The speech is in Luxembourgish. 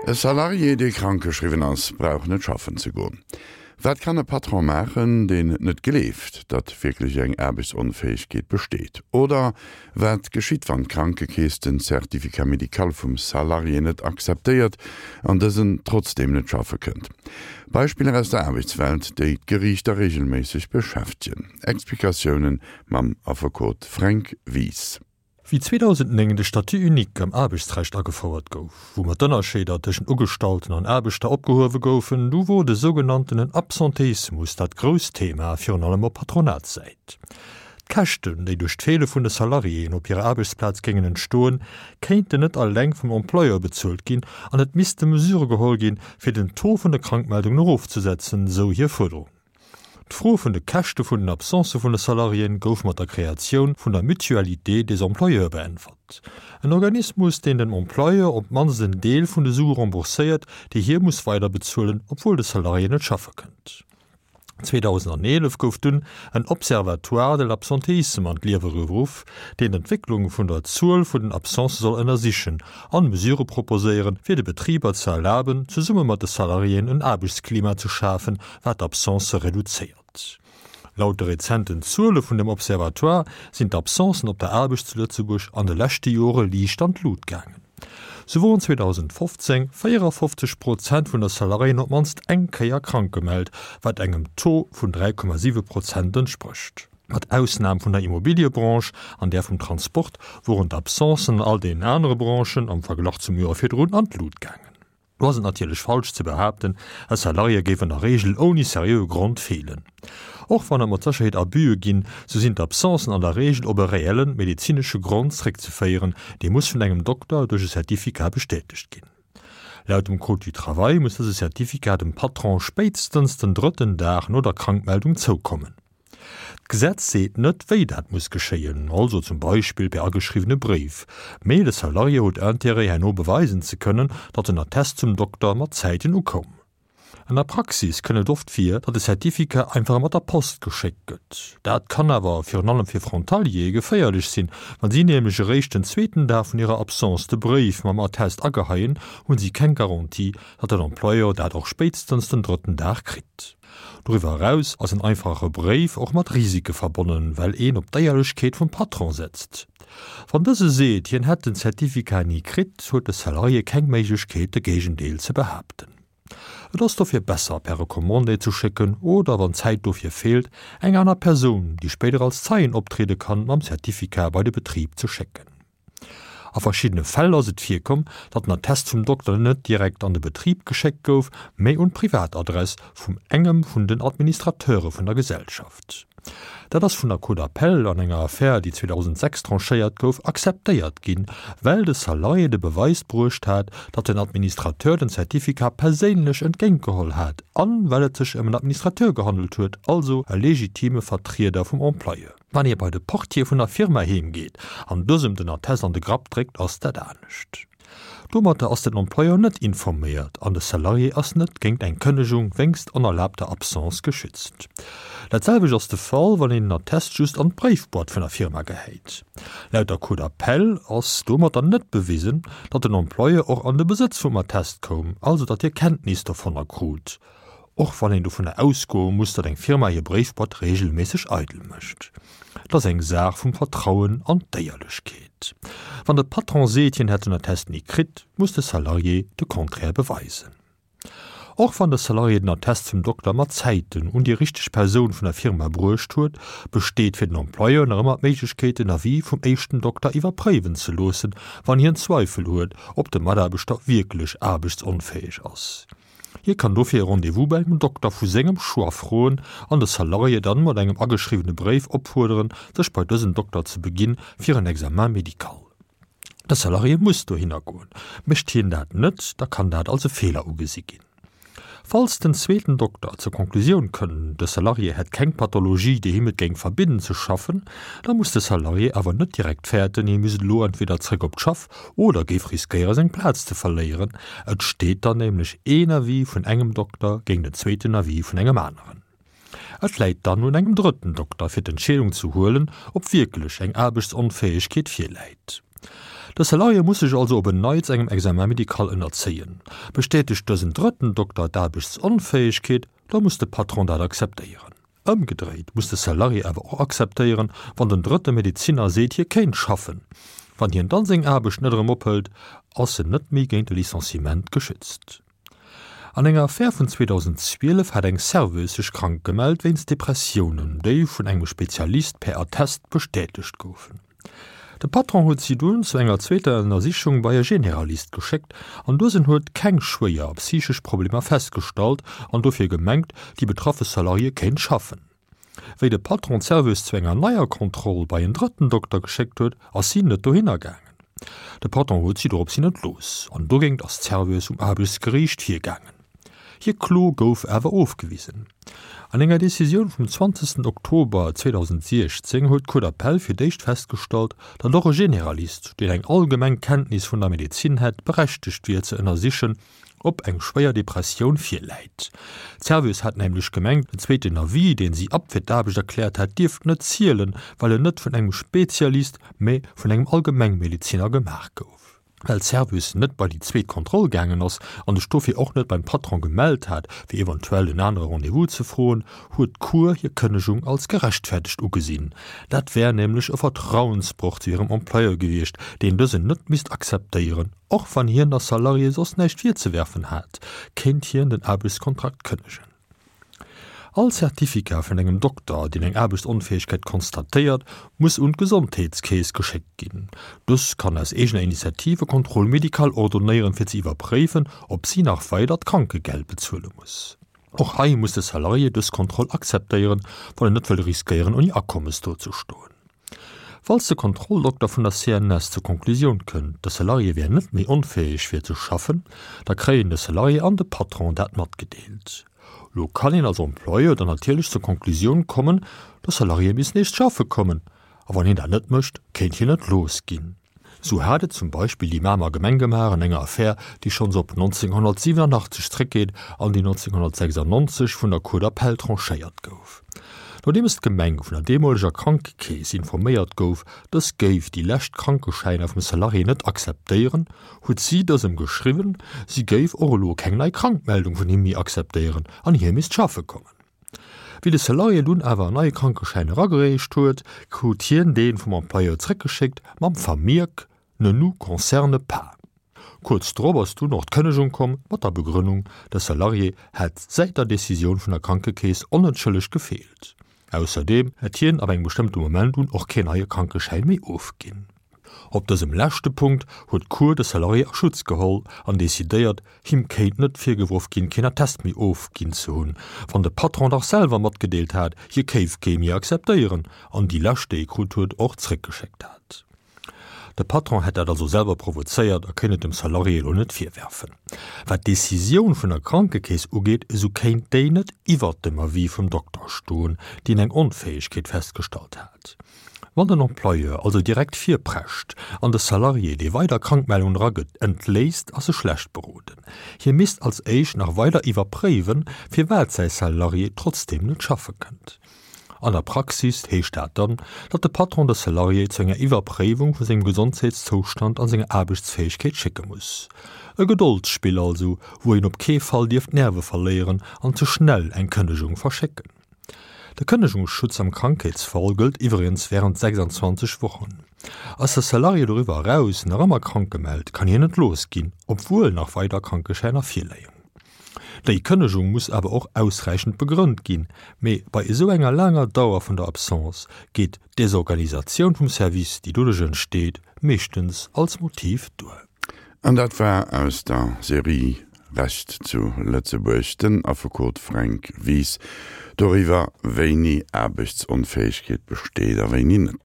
E Salarié, dee krankgeschriwwen ass, brauch net schaffen ze goen. Wat kann e Patron maachen, deen net gleeft, datt wierklech eng Aarbechtsonfäegkeet besteet? Oder wat geschitt, wann d'Krankekeess den Certificat médical vum Salarié net akzeptéiert an dësen trotzdeem net schaffe kënnt? Beispiller aus der Aarbechtswelt, déi d'Geriichter reegelméisseg beschäftegen. Explikatiounen mam Affekot Fränk Wies. Wéi 2009 de Statut unique am Aarbechtsrecht agefouert gouf, wou mat d'Ënnerscheeder tëschent Ugestallten an Aarbechter opgehuewe goufen, du wor de sougenanntenen Absentéismus dat grousst Thema, virun allem op Patronatssäit. D'Käschten, déi duerch d'Feele vun de Salariéen op hirer Aarbechtsplaz géingen entstoen, kéinten net alleng vum Employeur bezuelt ginn an et misste Mesure geholl ginn, fir den Taux vun de Krankmeldungen erofzesetzen, sou hir Fuerderung. D'Fro vun de Käschte vun den Absencë vun de Salariéen gouf mat der Kreatioun vun der Mutualité des employeurs beäntwert. En Organismus, deen dem Employeur op d'mannst en Deel vun de Sue rembourséiert, déi hie muss weiderbezuelen, obwuel de Salarié net schaffe kënnt. 2011 gouf dunn en Observatoire de l'absentéisme an d'Liewe geruff, deen d'Entwécklung vun der Zuel vun den Absencë soll ënnersichen an Mesure proposéieren, fir de Betriber ze erlaben, zesumme mat de Salariéen en Aarbechtsklima ze schafen, wat d'Absencë reduzéiert. Laut de rezenten Zuele vun dem Observatoire sinn d'Absencen op der Aarbecht zu Lëtzebuerg an de leschte Jore liicht an d'Lut gaangen. Sou woren 2015 54 Prozent vun der Salariéen op d'mannst eng Kéier krank gemellt, wat engem Taux vun 3,7 Prozent entsprécht. Mat Ausnam vun der Immobiliëbranche an där vum Transport woren d'Absencen an all deenen anere Branchen am Verglach zum Joer virdrun an d'Lut gaangen. Do ass et natierlech falsch ze behaapten, e Salarié géif an der Reegel ouni seriöe Grond feelen. Och wann et mat Sécherheet Abuse ginn, sou sinn d'Absencen an der Reegel op e reellen medezinesche Grond zréckzeféieren, dee muss vun engem Dokter duerch e Certificat bestätegt ginn. Laut dem Code du Travail muss dëse Certificat dem Patron spéitstens den drëtten Dag no der Krankmeldung zoukommen. D'Gesetz seet net, wéi dat muss geschéien, also zum Beispill per ageschriwwene Bréif, mee de Salarié huet Intérêt, herno beweisen ze kënnen, datt den Attest zum Dokter mat Zäiten ukoum. An der Praxis kënn et oft vir, datt de Certificat einfach mat der Post geschéckt gëtt. Dat kann awer, virun allem fir Frontaliere, geféierlech sinn, Wa si nämlech eréischt den zweeten Dag vun hirer Absence de Bréif mam Attest ageheien, hu si keng Garantie, datt den Employeur dat och spéitstens den drëtten Dag kritt. Doriwwer eraus ass en einfache Bréif och mat Risike verbonnen, well een op d'Éierlechkeet vum Patron setzt. Wann dëse seet, hien hätt den Certificat ni kritt, huet de Salarié keng Méiglechkeet, de Géigendeel ze behaapten. Et ass dofir besser, per Recommandé ze schécken oder, wann d'Zäit dofir feelt, eng aner Persoun, déi spéider als Zeien optriede kann, mam Certificat bei de Betrib ze schécken. A verschiddene Fäll ass et virkomm, datt den Attest vum Dokter net direkt an de Betrib geschéckt gouf, mee un d'Privatadress vum engem vun den Administrateure vun der Gesellschaft. Dat ass vun der Cour d'appel an enger Affär, déi 2006 tranchéiert gouf, akzeptéiert ginn, well de Salarié de Beweis bruecht hat, datt den Administrateur den Certificat perséinlech entgéintgeholl hat an well et sech ëm en Administrateur gehandelt huet, also e legitime Vertrieder vum Employeur. Wann ee bei de Portier vun der Firma heem geet an dësem den Attest an de Grapp dréckt, ass dat anescht. Domatter ass den Employeur net informéiert an de Salarié ass net géingt eng Kënnegung wéngst onerlaabter Absence geschützt. Dat selwecht ass de Fall, wann een den Attest just an d'Bréifboîte vun der Firma gehäit. Laut der Cour d'appel ass domatter net bewisen, datt den Employeur och an de Besëtz vum Attest koum, also datt hie Kenntnis dovunner krut. Och wann een dovunner ausgoe muss, datt eng Firma hir Bréifboîte reegelméisseg eidel mécht. Et ass eng Saach vum Vertrauen an d'Éierlechkeet. Wann de Patron seet, hien hätt den Attest ni kritt, muss de Salarié de Contraire beweisen. Och wann de Salarié den Attest vum Dokter mat Zäiten un déi richteg Persoun vun der Firma bruecht huet, besteet fir den Employeur nach ëmmer d'Méiglechkeet, den Avis vum éischten Dokter iwwerpréiwen ze loossen, wann hien Zweifel huet, ob de Mataarbechter wierklech aarbechtsonfäeg ass. Hie kann dofir e Rendez-vous bei engem Dokter vu sengem Choix froen an de Salarié dann mat engem ageschriwwene Bréif opfuerderen, sech bei dësen Dokter ze beginn fir en Examen médical. De Salarié muss dohinner goen. Mécht hien dat net, da kann dat als e Feeler ugesi ginn. Falls den zweeten Dokter zur Conclusioun kënn, de Salarié hätt keng Pathologie, déi him et géing verbidden ze schaffen, da muss de Salarié awer net direkt fäerten, hie misst elo entweder zréck op d'Schaff oder géif riskéiere seng Plaz ze verléieren. Et steet dann nämlech een Avis vun engem Dokter géint en zweeten Avis vun engem aneren. Et läit dann un engem drëtten Dokter fir d'Entscheedung ze huelen, ob wierklech eng Aarbechtsonfäegkeet virläit. De Salarié muss sech also op en Neits engem Examen médical ënnerzéien. Bestätegt dësen drëtten Dokter d'Aarbechtsonfäegkeet, da muss de Patron dat akzeptéieren. Ëmgedréit muss de Salarié awer och akzeptéieren, wann den drëtte Medezinner seet, hie kéint schaffen. Wann hien dann seng Aarbecht net erëm ophëlt, ass en net méi géint e Licenciement geschützt. An enger Affär vun 2012 hat eng Serveuse sech krank gemellt wéinst Depressiounen, déi vun engem Spezialist per Attest bestätegt goufen. De Patron huet si dunn zu enger zweeter Ënnersichung bei e Generalist geschéckt an dësen huet keng schwéier psychesch Problemer festgestallt an dofir gemengt, déi betraffe Salariée kéint schaffen. Wéi de Patron d'Serveuse zu enger neier Kontroll bei en drëtten Dokter geschéckt huet, ass si net dohinner gaangen. De Patron huet si dorops hin entlooss an dogéint ass d'Serveuse um Aarbechtsgeriicht virgaangen. Hir Klo gouf awer ofgewisen. An enger Decisioun vum 20 Oktober 2016 huet d'Cour d'appel fir d'éischt festgestallt, datt och e Generalist, deen eng allgemeng Kenntnis vun der Medezin hätt, berechtegt wier ze ënnersichen, ob eng schwéier Depressioun virläit. D'Serveuse hat nämlech gemengt, den zweeten Avis, deen si appt fir d'Aarbecht erkläert hat, dierft net zielen, well en net vun engem Spezialist, mä vun engem Allgemengmedeziner gemaach gouf. Well d'Serveuse net bei déi zweet Kontroll gaangen ass an sech dofir och net beim Patron gemellt hat, fir eventuell en anere Rendez-vous ze froen, huet d'Cour hir Kënnegung als gerechtfertegt ugesinn. Dat wär nämlech e Vertrauensbroch zu hirem Employeur gewiescht, deen dësen net misst akzeptéieren. Och wann hien der Salariée soss näischt virzewerfen hat, kéint hien den Aarbechtskontrakt kënnegen. All Certificat vun engem Dokter, deen eng Aarbechtsonfäegkeet konstatéiert, muss un d'Gesondheetskeess geschéckt ginn. Dës kann aus eegener Initiativ e Contrôle médical ordonéieren, fir ze iwwerpréifen, ob si nach weider d'Krankegeld bezuele muss. Och hei muss de Salarié dës Kontroll akzeptéieren, wann en net wëll riskéieren, ouni Akommes dozestoen. Falls de Kontrolldokter vun der CNS zur Konklusioun kënnt, de Salarié wär net méi onfäeg fir ze schaffen, da kréien de Salarié an de Patron dat matgedeelt. Lo kann een als Employeur dann natierlech zur Konklusioun kommen, de Salarié misst nees schaffe kommen, a wann hien dat net mécht, kéint hien entlooss ginn. Sou hat et zum Beispill déi Mamer Gemeng gemaach an enger Affär, déi schonns op 1987 zréckgeet an déi 1996 vun der Cour d'appel tranchéiert gouf. Nodeems d'Gemeng vun der deemoleger Krankekeess informéiert gouf, dës géif déi lescht Krankeschäiner vum Salarié net akzeptéieren, huet si dësem geschriwwen, si géif och elo keng nei Krankmeldung vun him méi akzeptéieren an hie misst schaffe kommen. Wéi de Salarié dunn awer en neie Krankeschäin eragereecht huet, krut hien dee vum Employeur zréckgeschéckt mam Vermierk Ne nous concerne pas. Kuerz drop ass dunn och d'Kënnegung komm mat der Begrënnung, de Salarié hätt säit der Decisioun vun der Krankekeess onentschëllegt gefeelt. Ausserdeem hätt hien ab engem bestëmmte Moment un och keen neie Krankeschäin méi ofginn. Op dësem leschte Punkt huet d'Cour de Salarié a Schutz geholl an decidéiert, him kéint net virgeworf ginn, keen Attest méi ofginn ze hunn, wann de Patron dach selwer matgedeelt hat, hie kéif kee méi akzeptéieren an déi lescht, déi e krut huet, och zréckgeschéckt hat. De Patron hätt dat also selwer provozéiert a kéint et dem Salarié elo net virwerfen. Wat d'Decisioun vun der Krankekeess ugeet, esou kéint déi net iwwert dem Avis vum Dokter stoen, deen eng Onfäegkeet festgestallt hat. Wann den Employeur also direkt virprescht an de Salarié, dee weider Krankmeldungen eragëtt, entléisst, ass e schlecht beroden. Hie misst als éischt nach weider iwwerpréiwen, firwat säi Salarié trotzdeem net schaffe kënnt. An der Praxis heescht dat dann, datt de Patron de Salarié zu enger Iwwerpréiwung vu sengem Gesondheetszoustand an senger Aarbechtsfäegkeet schécke muss. E Gedoldsspill also, wou een op kee Fall dierf d'Nerve verléieren an ze schnell eng Kënnegung verschécken. De Kënnegungsschutz am Krankheetsfall gëllt iwwregens wärend 26 Wochen. Ass de Salarié doriwwer eraus nach ëmmer krank gemellt, kann hien entlooss ginn, obwuel nach weider Krankeschäiner virléien. Déi Kënnegung muss awer och ausräichend begrënnt ginn, mee bei esou enger laanger Dauer vun der Absence geet d'Desorganisatioun vum Service, déi doduerch entsteet, meeschtens als Motiv duer. An dat war aus der Serie Recht zu Lëtzebuerg den Affekot Fränk Wies doriwwer, wéini Aarbechtsonfäegkeet besteet a wéini net.